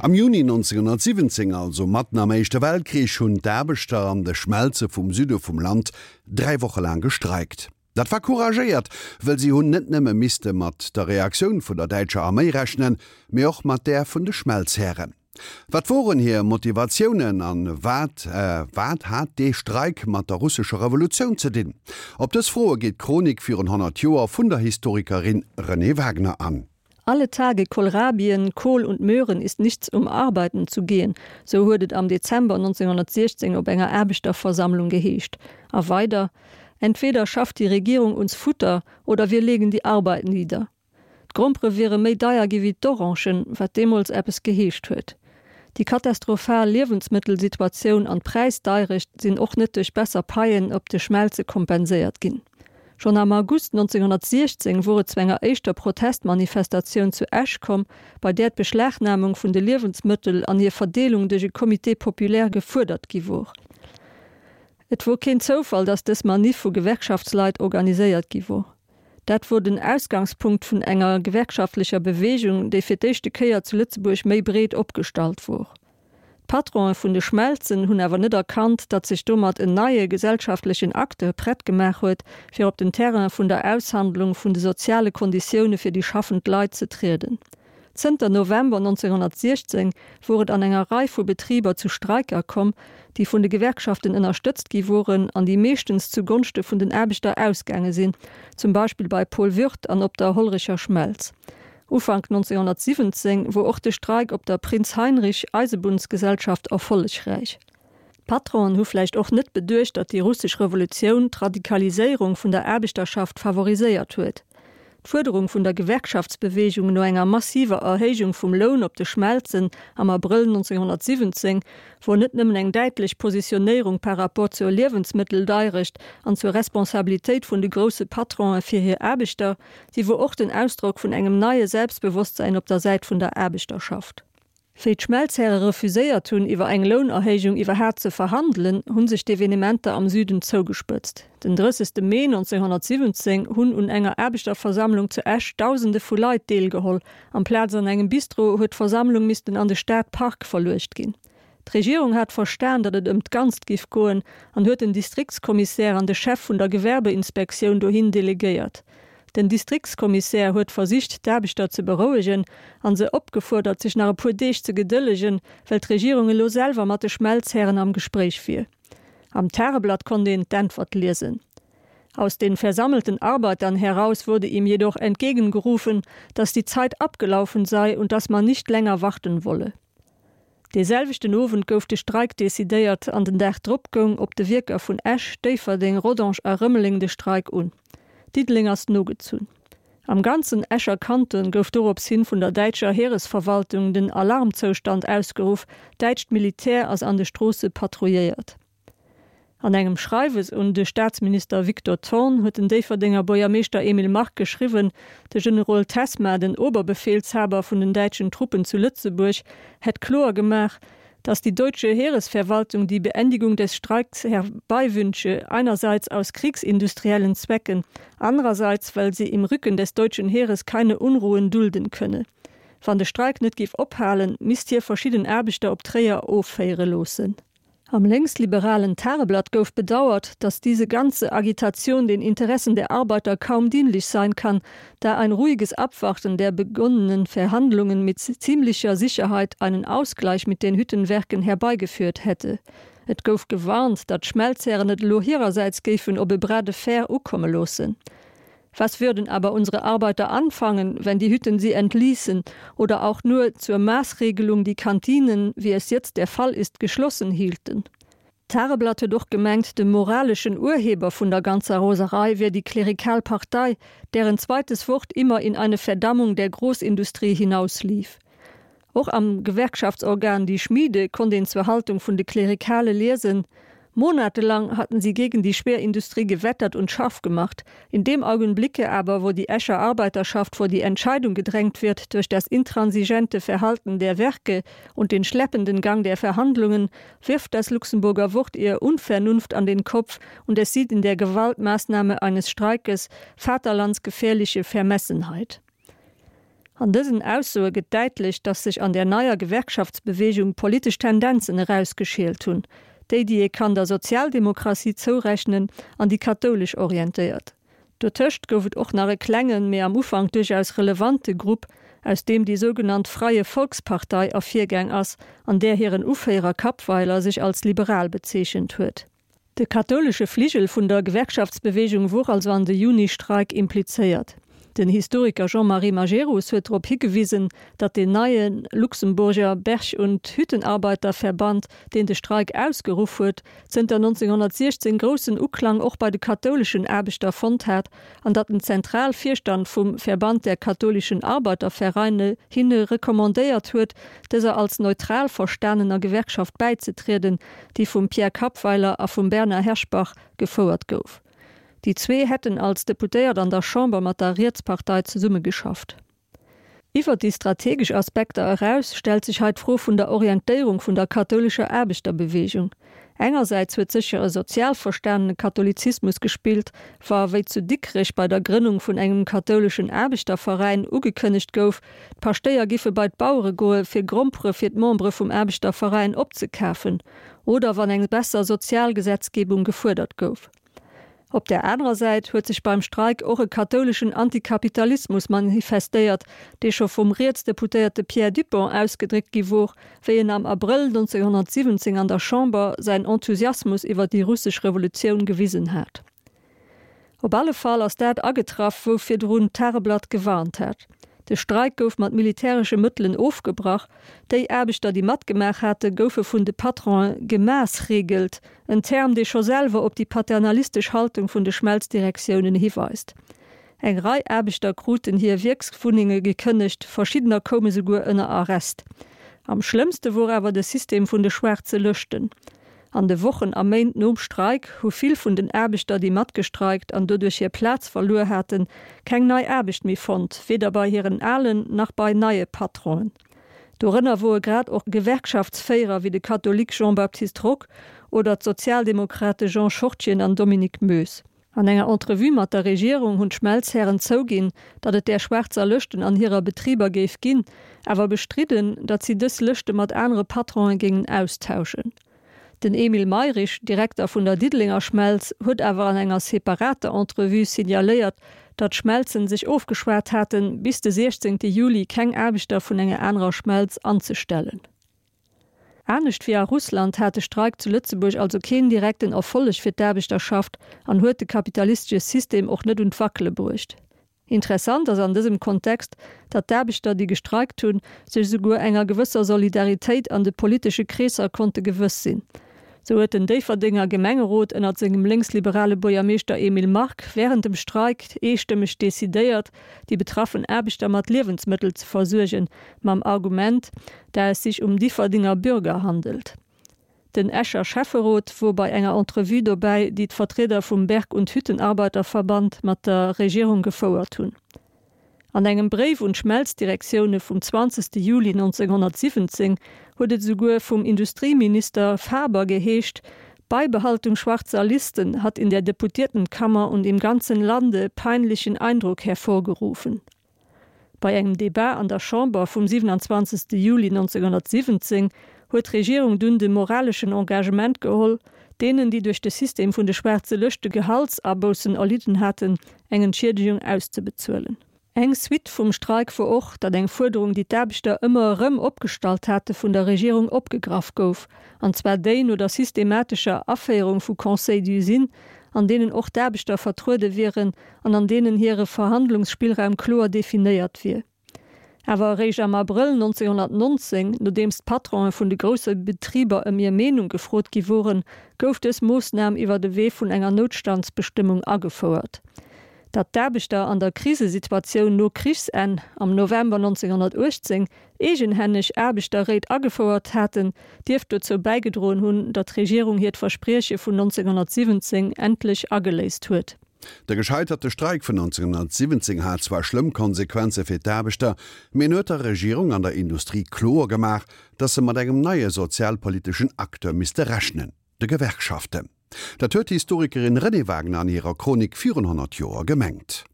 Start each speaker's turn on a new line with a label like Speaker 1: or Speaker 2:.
Speaker 1: Am Juni 1917, also matten am Éischte Weltkrich, hunn d'Aarbechter an de Schmelze vum Süde vum Land 3 Woche laang gestreikt. Dat war couragéiert, wëll si hunn net nëmme misste mat der Reaktioun vun der däitscher Arméi rechnen, mee och mat där vun de Schmelzhären. Wat woren hir Motivatiounen an wat wat hat dee Streik mat der russescher Revolutioun ze dinn? Op dës Froe geet d'Chronik virun 100 Joer vun der Historikerin Renée Wagner an.
Speaker 2: Alle Tage Kohlrabien, Kohl und Möhren ist nichts um arbeiten zu gehen, sou huet et am Dezember 1916 op enger Aarbechterversammlung geheescht. A weider, Entweder schafft die Regierung uns Futter oder wir legen die Arbeit nieder. D'Grompere wiere méi deier gi wéi d'Orangen, wat deemools eppes geheescht huet. Déi katastrophal Liewensmëttelsituatioun an d'Präisdeirecht sinn och net duerch besser Paien op de Schmelze kompenséiert ginn. Schonn am August 1916 wor et zu enger éischter Protestmanifestatioun zu Esch komm, bei där d'Beschlagnahmung vun de Liewensmëttel an hir Verdeelung duerch e Comité populaire gefuerdert gi wor. Et wor keen Zoufall, datt dës Maniff vu Gewerkschaftsleit organiséiert gi wor. Dat wor den Ausgangspunkt vun enger gewerkschaftlecher Bewegung, déi fir d'éischte Kéier zu Lëtzebuerg méi breet opgestallt wor. D'Patronen vun de Schmelzen hunn awer net erkannt, datt sech domat en neie gesellschaftlechen Acteur prett gemaach huet, fir op den Terrain vun der Aushandlung vun de soziale Konditioune fir déi schaffend Leit ze trieden. Zënter November 1916 wor et an enger Rei vu Betriber zu Streiker komm, déi vun de Gewerkschaften ënnerstëtzt gi woren an déi meeschtens zu Gonschte vun den Aarbechter ausgaange sinn, zum Beispill bei Paul Würth an op der Hollerecher Schmelz. Ufank 1917 wor och de Streik op der Prinz Heinrich Eisebunnsgesellschaft erfollegräich. D'Patronen hu vläicht och net beduecht, datt déi russesch Revolutioun d'Radikaliséierung vun der Aarbechterschaft favoriséiert huet. D'Fuerderung vun der Gewerkschaftsbeweegung no enger massiver Erhéijung vum Loun op de Schmelzen am Abrëll 1917 wor net nëmmen eng däitlech Positionéierung par rapport zur Liewensmëtteldeirecht an zur Responsabilitéit vun de grousse Patronen fir hir Aarbechter, si wor och den Ausdrock vun engem neie Selbstbewosstsäin op der Säit vun der Aarbechterschaft. Wéi d'Schmelzhäre refuséiert hunn, iwwer eng Lounerhéijung iwwerhaat ze verhandelen, hu sech d'Evenementer am Süden zougespëtzt. Den 30. Mee 1917 hunn un enger Aarbechterversammlung zu Esch Dausende vu Leit deelgeholl. Amplaz an engem Bistro huet d'Versammlung missten an de Stadpark verluecht ginn. D'Regierung hat verstan, datt et ëm d'Ganzt giff goen an huet den Distriktskommissär an de Chef vun der Gewerbeinspektioun dohin delegéiert. Den Distriktskommissär huet versicht, d'Aarbechter ze berouegen an se opgefuerdert, sech nach e puer Deeg ze gedëllegen, well d'Regierung elo selwer mat de Schmelzhären am Gespréich wier. Am Tageblatt konnt een d'Äntwert liesen. Aus den versammelten Arbeitern heraus wurde ihm jedoch entgegengerufen, dass die Zeit abgelaufen sei und dass man nicht länger warten wolle. Dee selwechten Owend gouf de Streik decidéiert an den Dag drop goung op de Wierker vun Esch, Déifferdeng, Rodange a Rëmeleng de Streik un. Diddeleng ass nogezunn. Am ganzen Escher Kanton gouf dorops hin vun der däitscher Heeresverwaltung den Alarmzoustand ausgeruff, däitscht Militär ass an de Stroosse patrouilléiert. An engem Schreiwes un de Staatsminister Victor Thorn huet den Déifferdenger Buergermeeschter Emile Mark geschriwwen, de Generol Tessma, den Oberbefehlshaber vun den däitschen Truppen zu Lëtzebuerg, hätt kloer gemaach, dass die deutsche Heeresverwaltung die Beendigung des Streiks herbeiwünsche, einerseits aus kriegsindustriellen Zwecken, andererseits weil sie im Rücken des deutschen Heeres keine Unruhen dulden könne. Wann de Streik net géif ophalen, misst hie verschidden Aarbechter op Tréier offéiere loossen. Am längsliberalen Tageblatt gouf bedauert, dass diese ganze Agitation den Interessen der Arbeiter kaum dienlich sein kann, da ein ruhiges Abwarten der begonnenen Verhandlungen mit ziemlicher Sicherheit einen Ausgleich mit den Hüttenwerken herbeigeführt hätte. Et gouf gewarnt, datt d'Schmelzhären et elo hirersäits géifen op e Bras de fer ukomme loossen. Was würden aber unsere Arbeiter anfangen, wenn die Hütten sie entließen oder auch nur zur Maßregelung die Kantinen, wie es jetzt der Fall ist, geschlossen hielten? D'Tageblatt huet och gemengt, de moraleschen Urheber vun der ganzer Roserei wier déi klerikal Partei, deren zweites Wort immer in eine Verdammung der Großindustrie hinauslief. Och am Gewerkschaftsorgan Die Schmiede konnt een zur Haltung vun de Klerikale liesen, Monatelang hatten sie gegen die Schwerindustrie gewettert und scharf gemacht. In dem Augenblicke aber, wo die Escher Arbeiterschaft vor die Entscheidung gedrängt wird durch das intransigente Verhalten der Werke und den schleppenden Gang der Verhandlungen, wirft das Luxemburger Wort ihr Unvernunft an den Kopf und es sieht in der Gewaltmaßnahme eines Streikes vaterlandsgefährliche Vermessenheit. An dësen Aussoe gëtt däitlech, datt sech an där neier Gewerkschaftsbeweegung politesch Tendenzen erausgeschielt hunn, déi, déi ee kann der Sozialdemokratie zourechnen an déi kathoulesch orientéiert. Dotëscht gouf et och nach e klengen, mee am Ufank duerchaus relevante Grupp, aus deem déi sougenannt Freie Volkspartei ervirgaang ass, an där hiren Uféierer Kappweiler sech als liberal bezeechent huet. De kathoulesche Fligel vun der Gewerkschaftsbeweegung wor also an de Juni-Streik implizéiert. Den Historiker Jean-Marie Majerus huet drop higewisen, datt deen neie Luxemburger Berg und Hüttenarbeiterverband, deen de Streik ausgeruff huet, zënter 1916 groussen Uklang och bei de kathouleschen Aarbechter fonnt hat an datt den Zentralvirstand vum Verband der katholischen Arbeitervereine hinne recommandéiert huet, dëser als neutral verstanener Gewerkschaft bäizetrieden, déi vum Pierre Kappweiler a vum Bernard Herschbach gefouert gouf. Déi zwee hätten als Deputéiert an der Chamber mat der Rietspartei zesummegeschafft. Iwwer déi strategesch Aspekter eraus stellt sech hei d'Fro vun der Orientéierung vun der kathoulescher Aarbechterbeweegung. Engersäits huet sécher e sozial verstanene Katholizismus gespillt, wa wéi zu Dikrech bei der Grënnung vun engem kathouleschen Aarbechterveräin ugekënnegt gouf, D'Paschtéier giffe bei d'Bauere goe fir Grompere fir d'Membere vum Aarbechterveräin opzekafen, oder wann eng besser Sozialgesetzgebung gefuerdert gouf. Op där anerer Säit huet sech beim Streik och e kathouleschen Antikapitalismus manifestéiert, dee scho vum Rietsdeputéierte Pierre Dupong ausgedréckt gi wor, wéi en am Abrëll 1917 an der Chamber säin Enthusiasmus iwwer déi russesch Revolutioun gewisen hat. Op alle Fall ass dat agetraff, wou virdrun d'Tageblatt gewarnt hat. De Streik gouf mat militäresche Mëttelen ofgebrach. Déi Aarbechter, déi matgemaach hate, goufe vun de Patronen gemaassregelt, en Term, dee scho selwer op déi paternalistesch Haltung vun de Schmelzdirektiounen hiweist. Eng Rei Aarbechter kruten hir Wierkswunnenge gekënnegt, verschiddener koume souguer ënner Arrest. Am schlëmmste wor awer de System vun de schwaarze Lëschten. An de Wochen a Méint nom Streik hu vill vun den Aarbechter, déi matgestreikt an doduerch hir Plaz verluer haten, keng nei Aarbecht méi fonnt, weder bei hiren alen nach bei neie Patronen. Dorënner woe grad och Gewerkschaftsféierer wéi de Katholik Jean-Baptiste Rock oder d'Sozialdemokrate Jean Schortgen an Dominique Moes. An enger Entrevue mat der Regierung hunn d'Schmelzhären zouginn, datt et där schwaarzer Lëschten an hirer Betriber géif ginn, awer bestridden, datt si dës Lëschte mat anere Patronen géingen austauschen. Den Emile Mayrisch, Direkter vun der Diddelenger Schmelz, huet awer an enger separater Entrevue signaléiert, datt d'Schmelzen sech ofgeschwat haten, bis de 16 Juli keng Aarbechter vun enger anerer Schmelz anzestellen. Anescht wéi a Russland hat de Streik zu Lëtzebuerg also keen direkten Erfolleg fir d'Aarbechterschaft an huet de kapitalistesche System och net un d'Wackele bruecht. Interessant ass an dësem Kontext, datt d'Aarbechter, déi gestreikt hunn, sech esouguer enger gewësser Solidaritéit an de politesche Kreesser konnte gewëss sinn. Sou huet den Déifferdenger Gemengerot ënnert sengem lénksliberale Buergermeeschter Emile Mark wärend dem Streik eestëmmeg decidéiert, déi betraffen Aarbechter mat Liewensmëttel ze versuergen, mam Argument, da es sich um Differdinger Bürger handelt. Den Escher Schäfferot wor bei enger Entrevue dobäi, déi d'Vertrieder vum Berg und Hüttenarbeiterverband mat der Regierung gefouert hunn. An engem Bréif un d'Schmelzdirektioune vum 20 Juli 1917 huet et esouguer vum Industrieminister Faber geheescht, Beibehaltung schwarzer Listen hat in der Deputiertenkammer und im ganzen Lande peinlichen Eindruck hervorgerufen. Bei engem Debat an der Chamber vum 27 Juli 1917 huet d'Regierung dunn de moraleschen Engagement geholl, deenen, déi duerch de System vun de schwaarze Lëschte Gehaltsaboussen erlidden haten, eng Entschiedegung auszebezuelen. Eng Suite vum Streik wor och, datt eng Fuerderung, déi d'Aarbechter ëmmer erëm opgestallt hate, vun der Regierung opgegraff gouf, an zwar déi no der systematescher Aféierung vu Conseils d'usine, an deenen och d'Aarbechter vertruede wieren an an deenen hire Verhandlungsspillraum kloer definéiert wier. Awer eréischt am Abrëll 1919, nodeems d'Patronen vun de grousse Betriber ëm hir Meenung gefrot gi woren, gouf dës Moossnam iwwer de Wee vun enger Noutstandsbestëmmung agefouert. Datt d'Aarbechter an der Krisesituatioun no Krichsenn am November 1918 eegenhänneg Aarbechterréit agefouert haten, dierft dozou bäigedroen hunn, datt d'Regierung hiert Versprieche vun 1917 endlech ageléist huet.
Speaker 1: De gescheiterte Streik vun 1917 hat zwar schlëmm Konsequenze fir d'Aarbechter, mee en huet der Regierung an der Industrie kloer gemaach, datt se mat engem neie sozialpoliteschen Acteur misste rechnen, de Gewerkschaften. Dat huet d'Historikerin Renée Wagner an hirer Chronik virun 100 Joer gemengt.